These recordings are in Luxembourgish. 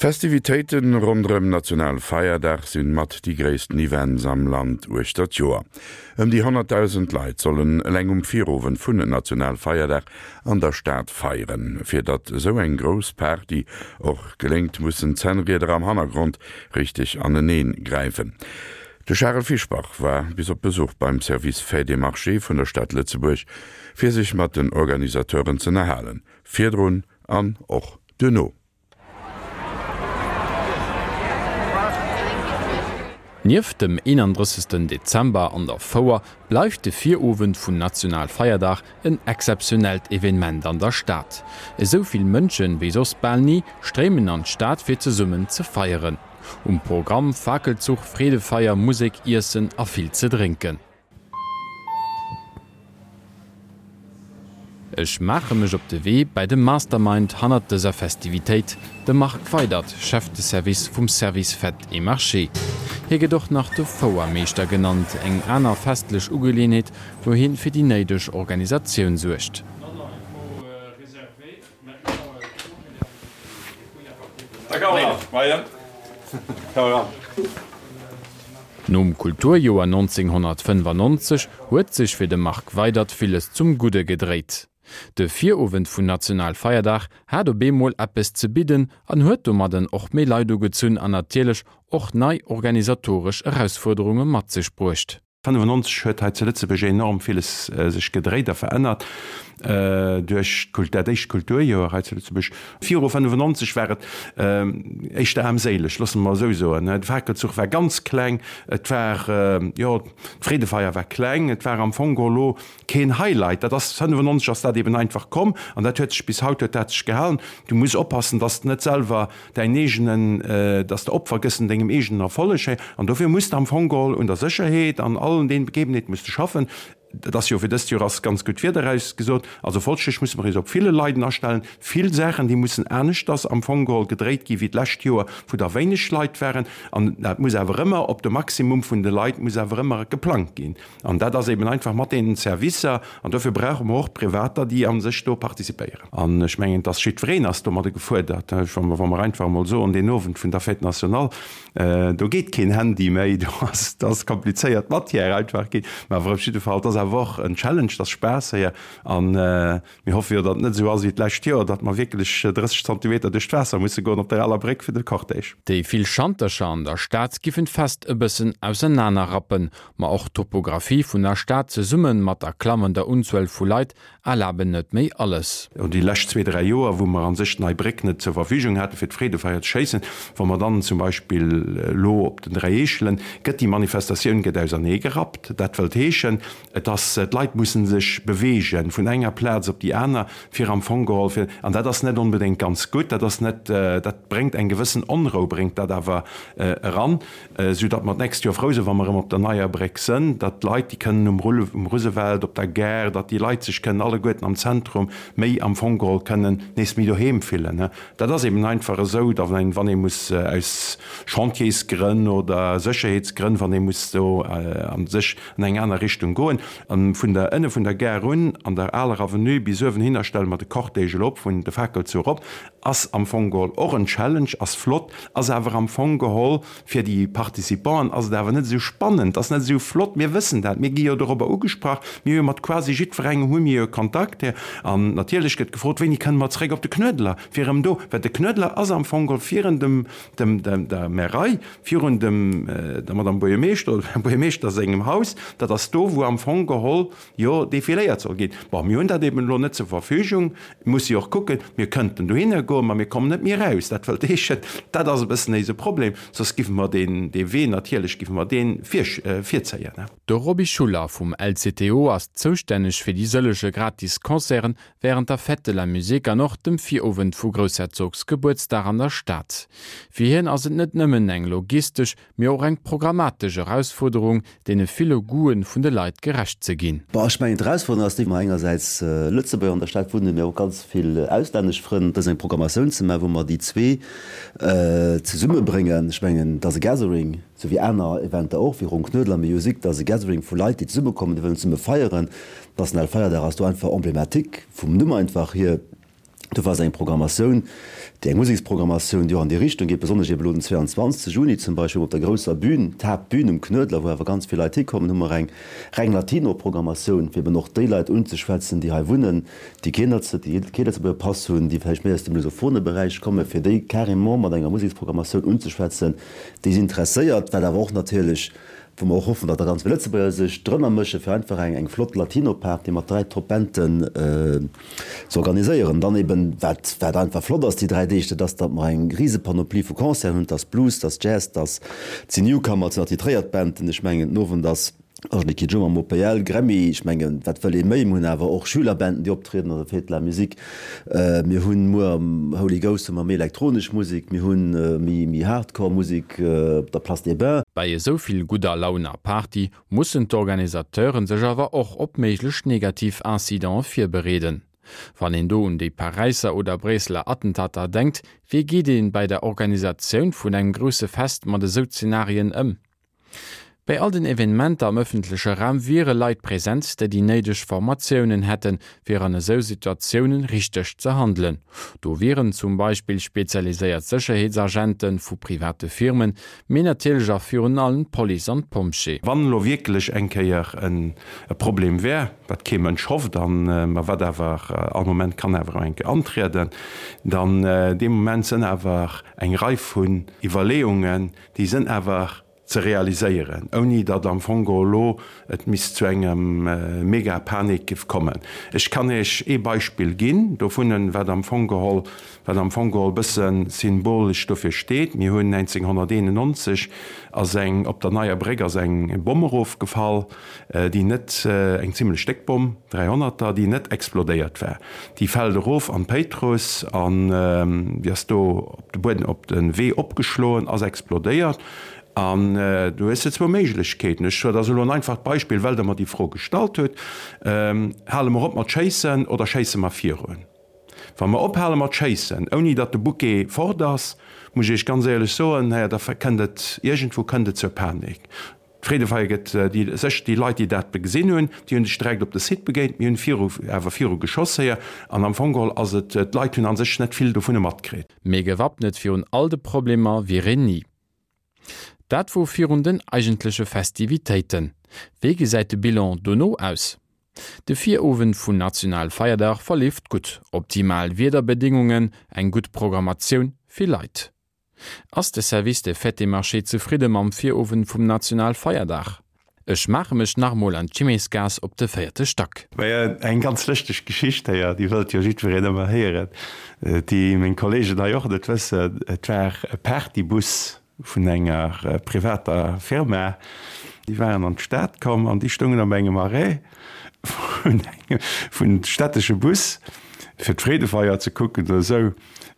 D'Festivitéite ronderëm Nationalfeierdag sinn mat déi gréissten Events am Land uechter d'Joer. Ëm déi 100.000 Leit sollen eleng um Virowend vun Nationalfeierdag an der Stad feieren. Fir datt esou eng grouss Party och geléngt, mussen d'Zännrieder am Hannergrond richteg aneneen gräifen. De Charel Fischbach war bis op Besuch beim Service Fêtes et Marchés vun der Stad Lëtzebuerg, fir sech mat den Organisateuren z'ënnerhalen, virdrun an och duerno. Nieft dem 31. Dezember an der Fouer bleift de Virowend vun Nationalfeierdag en exzeptionellt Evenement an der Stad. Esou vill Mënschen wéi soss bal ni stréimen an d'Stad fir zesummen ze feieren. Um Programm, Fakelzuch, Freedefeier, Musek, Iessen a vill ze drénken. Ech maache mech op de Wee bäi de Mastermind hannert dëser Festivitéit, de Marc Weydert, Chef de Service vum Service Fêtes et Marchés. Hie gëtt och nach de Fouermeeschter genannt, eng aner festlech Ugeleeënheet, wou hien fir déi néideg Organisatioun suergt. Nom Kulturjoer 1995 huet sech fir de Marc Weydert villes zum Gudde gedréit. De Virowend vun Nationalfeierdag hat op eemol eppes ze bidden an huet domadden och méi Leit ugezunn an natierlech och nei organisatoresch Erausfuerderunge mat sech bruecht. 95 huet hei zu Lëtzebuerg enorm villes sech gedréit a verännert duerch dat éischt Kulturjoer hei zu Lëtzebuerg. Viru 95 war et éischter aarmséileg, loosse mer esou soen. De Fakelzuch war ganz kleng, et war, jo, d'Freedefeier war kleng, et war am Fong geholl elo keen Highlight. Dat ass, 95 ass dat eben einfach komm an dat huet sech bis haut huet dat sech gehalen. Du muss oppassen, dass de net selwer däin eegenen, dass de Opfer gëss un dengem eegenen Erfolleg, hé, an dofir muss de am Fong geholl un der Sécherheet an allen deenen Begebenheeten muss de schaffen. Et ass jo fir dëst Joer ass ganz gutt Wieder erausgesot, also folglech musse mer eis op ville Leiden astellen, vill Saachen déi mussen aneschters am Fong geholl gedréit gi wéi d'lescht Joer, wou der wéineg Leit waren, an dat muss awer ëmmer op de Maximum vun de Leit muss awer ëmmer geplangt ginn. An dat ass eben einfach mat deenen Servicer, an dofir brauche mer och Privater, déi a sech do participéieren. An ech mengen, dass jiddwereen ass domadde gefuerdert. Wa mer einfach emol soen, deen Owend vun der Fête nationale, do geet keen Handy méi, do ass, dat ass komplizéiert Matière einfach ginn. Mä awer op jidde Fall, et ass awer och en Challenge, et ass Spaass héier. An Mir hoffe jo, datt et net esou ass wéi d'lescht Joer, datt mer wierklech 30 Zantimeter duerch d'Waasser musse goen op der aler Bréck fir de Cortège. Déi vill Schantercher an der Stad giffen d'Fest e bëssen ausernaner rappen, ma och d'Topographie vun der Stad zesumme mat der klammender Unzuel vu Leit erlaben net méi alles. Déi lescht zwee, dräi Joer, wou mer a sech d'Nei Bréck net zur Verfügung hate fir d'Freedefeier ze schéissen, wa mer dann zum Beispill elo op den 3 Eechelen, gëtt déi Manifestatioun gëtt ausernee gerappt. Dat wëllt heeschen, Et ass, d'Leit mussen sech beweegen vun enger Plaz op déi aner, fir am Fong geholl fir, an dat ass net onbedéngt ganz gutt, dat ass net, dat bréngt eng gewëssen Onrou bréngt dat awer eran, sou datt mer d'nächst Joer frou sinn, wa mer erëm op der neier Bréck sënn, datt d'Leit, déi kënnen um Rulle, um Roosevelt, op der Gare, datt déi Leit sech kënnen alleguerten am Zentrum méi am Fong geholl kënnen nees méi doheem fillen. Dat ass eben einfach esou, datt een, wann ee muss aus Chantiersgrënn oder Sécherheetsgrënn, wann ee muss do a sech an eng aner Richtung goen. An vun der, ënne vun der Gare un, an der aler Avenue bis uewen hinner stelle mer de Cortège elo op, vun de Fakelzuch erop, ass am Fong geholl och en Challenge, ass flott, ass awer am Fong geholl fir déi Participanten ass et awer net esou spannend, ass net esou flott. Mir wëssen dat, mir gi jo dorobber ugesprach, mir hu jo mat quasi jiddwerengem hu mir jo Kontakt. An natierlech gëtt gefrot, wéini kënne mer zréck op de Knuedler, fir erëm do, well de Knuedler ass am Fong geholl virun dem, dem, der Märei, Virun dem der Madame Buergermeeschter oder dem Här Buergermeeschter sengem Haus, dat ass do, wou am Fong geholl jo defiléiert soll ginn. Bon, mir hunn dat eben elo net zur Verfügung, muss jo och kucken, mir kënnten dohinner goen, ma mir kommen net méi eraus. Dat wëllt heeschen, dat ass e bëssen éise Problem, soss giffe mer deen, dee Wee natierlech giffe mer dee virzéien. De Roby Schuller vum LCTO ass zoustänneg fir déi sëllege gratis Concerten Wärend der Fête de la Musique an och dem Virowend vu Groussherzogsgebuertsdag an der Stad. Fir hien ass et net nëmmen eng logistesch, mee och eng programmatesch Erausfuerderung, deene ville Goûten vun de Leit gerecht ze ginn. Bon, ech mengen d'Erausfuerderung ass déi, mer engersäits Lëtzebuerger an der Stad wunnen, mee och ganz vill auslännesch Frënn, dës eng Programmatioun ze maachen, wou mer déi zwee zesummebréngen. Ech mengen, et ass e Gathering, esou wéi aner Eventer och, wéi Ronn Knuedler Music, et ass e Gathering vu Leit, déi zesummekommen, déi wëllen zesumme feieren. Nationalfeierdag ass do einfach emblématique vum Numm einfach hier. Dofir ass eng Programmatioun, déi eng Museksprogrammatioun, déi och an déi Richtung geet, besonnesch eben elo den 22 Juni zum Beispill, wou op der grousser Bühn, d'Haaptbühn um Knuedler, wou awer ganz vill Leit hikommen, hu mer eng reng Latino-Programmatioun, fir eben och déi Leit unzeschwätzen, déi hei wunnen, déi keen déi kee Lëtzebuerger Pass hunn, déi vläicht méi aus dem lusophone Beräich kommen, fir déi carrément mat enger Museksprogrammatioun unzeschwätzen, déi si interesséiert, wat awer och natierlech wou mer och hoffen, datt da ganz vill Lëtzebuerger sech drënner mëschen, fir einfach eng eng flott Latino-Party mat 3 Top-Banden ze organiséieren. Dann eben, wat wat einfach flott ass déi 3 Deeg, dat ass, datt mer eng rise Panoplie vu Concerten hunn, 't ass Blues, 't ass Jazz, 't ass, 't sinn Newcomer, 't sinn attitréiert Banden. Ech mengen, den Owend ass Angélique Kidjo mam OPL, Grammy, ech mengen, wat wëll ee méi? Mir hunn awer och Schülerbanden, déi optrieden, also Fête de la Musique. Mir hunn muer am Holy Ghost hu mer méi elektronesch Musek, mir hunn méi méi Hardcore Musek op der Place des Bains. Bei esou vill gudder Laun a Party mussen d'Organisateuren sech awer och op méiglech negativ Incidente virbereeden. Wann een do un déi Paräisser oder Bréisseler Attentater denkt, wéi geet ee bei der Organisatioun vun engem grousse Fest mat esou Zenarien ëm? Bei all den Evenementer am ëffentleche Raum wiere Leit present, déi déi néideg Formatiounen hätten, fir an esou Situatiounen richteg ze handelen. Do wieren zum Beispill spezialiséiert Sécherheetsagente vu private Firmen, mee natierlech a virun allem d'Police an d'Pompjee. Wann elo wierklech eng Kéier e Problem wär, wat kee Mënsch hofft an ma wat awer all Moment kann awer eng Kéier antrieden, dann dee Moment sënn awer eng Rei vun Iwwerleeungen, Déi sënn awer ze realiséieren, ouni datt am Fong geholl elo et misst zu engem mega Panik giff kommen. Ech kann Iech ee Beispill ginn dovunnen, wat am Fong geholl, wat am Fong geholl bësse symbolesch dofir steet. Mir hunn 1991 ass eng, op der Neier Bréck ass eng Bomm erofgefall, déi net, eng zimlech déck Bomm, Dräihonnerter, déi net explodéiert war. Déi fält erof an d'Péitruss an déi ass do op de Buedem, op de Wee opgeschloen, ass explodéiert. An do hues de zwou Méiglechkeeten. Ech, dat ass elo en einfacht Beispill, well Der mer déi Fro gestallt hutt, Hale mer op mat schéissen oder schéisse mer virun? Wa mer ophale mat schéissen, ouni datt de Bouquet fort ass, muss ech Iech ganz éierlech soen, naja, da kënnt et, iergendwou kënnt et zur Panik. D'Freedefeier gëtt déi sech déi Leit, déi dat gesinn hunn, déi hunn sech direkt op de Site begéint. Mir hunn viru awer viru geschoss héier an am Fong geholl ass et, d'Leit hunn a sech net vill dovunner matkritt. Mee gewappnet virun all de Problemer wier een ni. Dat wor virun den eigentleche Festivitéiten. Wéi gesäit de Bilan dono aus? De Virowend vun Nationalfeierdag verleeft gutt, optimal Wiederbedingungen, eng gutt Programmatioun, vill Leit. Ass de Service des Fêtes et Marchés zefridde mam Virowend vum Nationalfeierdag? Ech maache mech nach mol an d'Chimesgaass op de véierte Stack. Majo, eng ganz lëschteg Geschicht héier, déi wëllt jo jiddwereen ëmmer héieren, déi meng Kollegen hei och net wëssen. Et war e Partybus vun enger privater Firma, déi waren an d'Stad komm an déi stoungen op engem Arrêt vun engem, vun stättesche Bus, fir d'Freedefeier ze kucken oder esou.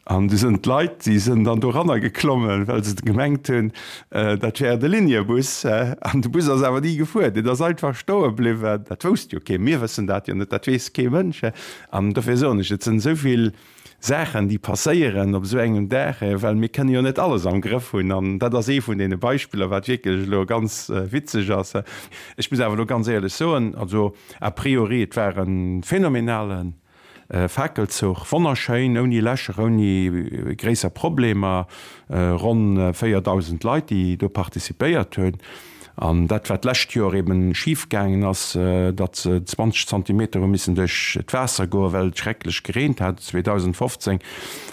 An du sënn d'Leit, déi sënn dann doranner geklommen, well se gemengt hunn, dat wär de Liniebus. An de Bus ass awer ni gefuer, deen ass einfach stoe bliwwen. Dat wousst jo keen, mir wëssen dat jo net, dat weess kee Mënsch. An dofir soen ech, et sënn esou vill Saachen, déi passéieren op esou engem Dag, well mir kënne jo net alles am Grëff hunn. An dat ass ee vun deene Beispiller, wat wierklech elo ganz witzeg ass. Ech muss awer elo ganz éierlech soen, also a priori, et war e phänomenalen Fakelzuch, wonnerschéin, ouni Lächer, ouni gréisser Problemer, ronn 4.000 Leit, déi do participéiert hunn. An dat, wat d'lescht Joer eben schif gaangen ass, datt se 20 Zantimeter hu missen duerch d'Waasser goen, well et schrecklech gereent hat 2015.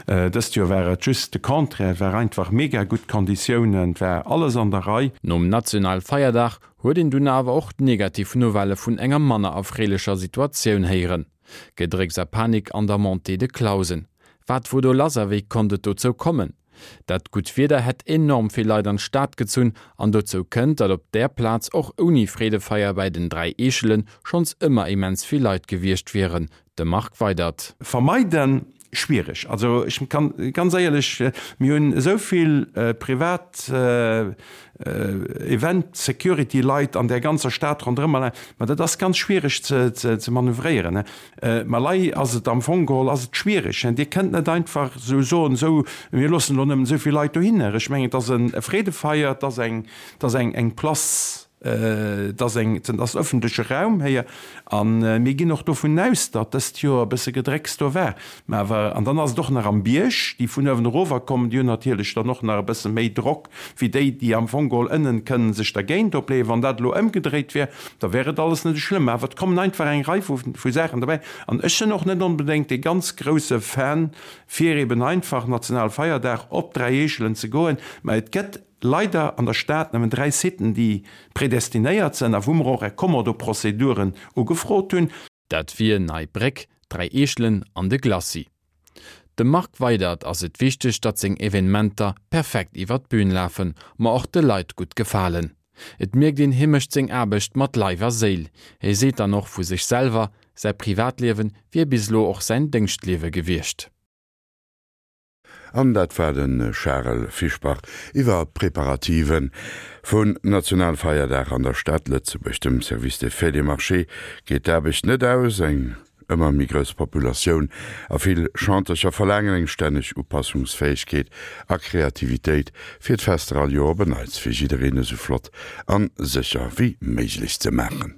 Dëst Joer war et just de Contraire, et war einfach mega gutt Konditiounen, et war alles an der Rei. Nom Nationalfeierdag huet een dunn awer och d'negativ Nouvellë vun enger manner erfreelecher Situatioun héieren. Gedrécks a Panik an der Montée de Clausen. Wat wor do lass a wéi konnt et dozou kommen? Dat gutt Wieder hätt enorm vill Leit an d'Stad gezunn an dozou kënnt, datt op där Plaz och ouni Freedefeier bäi den 3 Eechelen schonns ëmmer immens vill Leit gewiescht wieren. De Marc Weydert. Vermeiden, Schwiereg. Also ech kann ganz éierlech, mir hunn esou vill privat Event Security Leit an där ganzer Stad ronderëm allein, ma dat ass ganz schwiereg ze manövréieren. Ma lei ass et am Fong geholl ass et schwiereg. Dir kënnt net einfach esou soen, esou mir loossen elo nëmmen esou vill Leit dohinner. Ech mengen et ass e Freedefeier, et ass eng, et ass eng Place. Et ass eng, et ass ëffentleche Raum héier a mir ginn och dovun aus, datt dëst Joer e bësse Gedrécks do war. Mä awer, an dann ass et och nach am Bierg, déi vun uewen erower kommen, déi hunn natierlech dann och nach e bësse méi Drock wéi déi, déi am Fong geholl ënnen kënnen sech dergéint opleeën. Wann dat elo ëmgedréit wär, da wär et alles net esou schlëmm. Awer et kommen einfach eng Rei vu Saachen derbäi. An ech sinn och net onbedéngt dee ganz grouse Fan, fir eben einfach Nationalfeierdag op 3 Eechelen ze goen. Mä et gëtt leider an der Stad nëmmen 3 Siten, déi predestinéiert sinn a wou mer och Recommodo-Prozeduren ugefrot hunn. Dat wier Nei Bréck, 3 Eechelen an de Glacis. Dem Marc Weydert ass et wichteg, datt seng Evenementer perfekt iwwer d'Bün lafen, ma och de Leit gutt gefalen. Et mierkt een, hie mécht seng Aarbecht mat Leif a Séil. Hie seet dann och vu sech selwer, säi Privatliewe wier bis elo och säin Déngschtliewe gewiescht. An dat war de Charel Fischbach iwwer d'Preparative vun Nationalfeierdag an der Stad Lëtzebuerg. Dem Service des Fêtes et Marchés geet d'Aarbecht net aus. Eng ëmmer méi grouss Populatioun a vill Chantercher verlaangen eng stänneg Upassungsfäegkeet a Kreativitéit, fir d'Fester all Joer op en Neits fir jiddereen esou flott an sécher wéi méiglech ze maachen.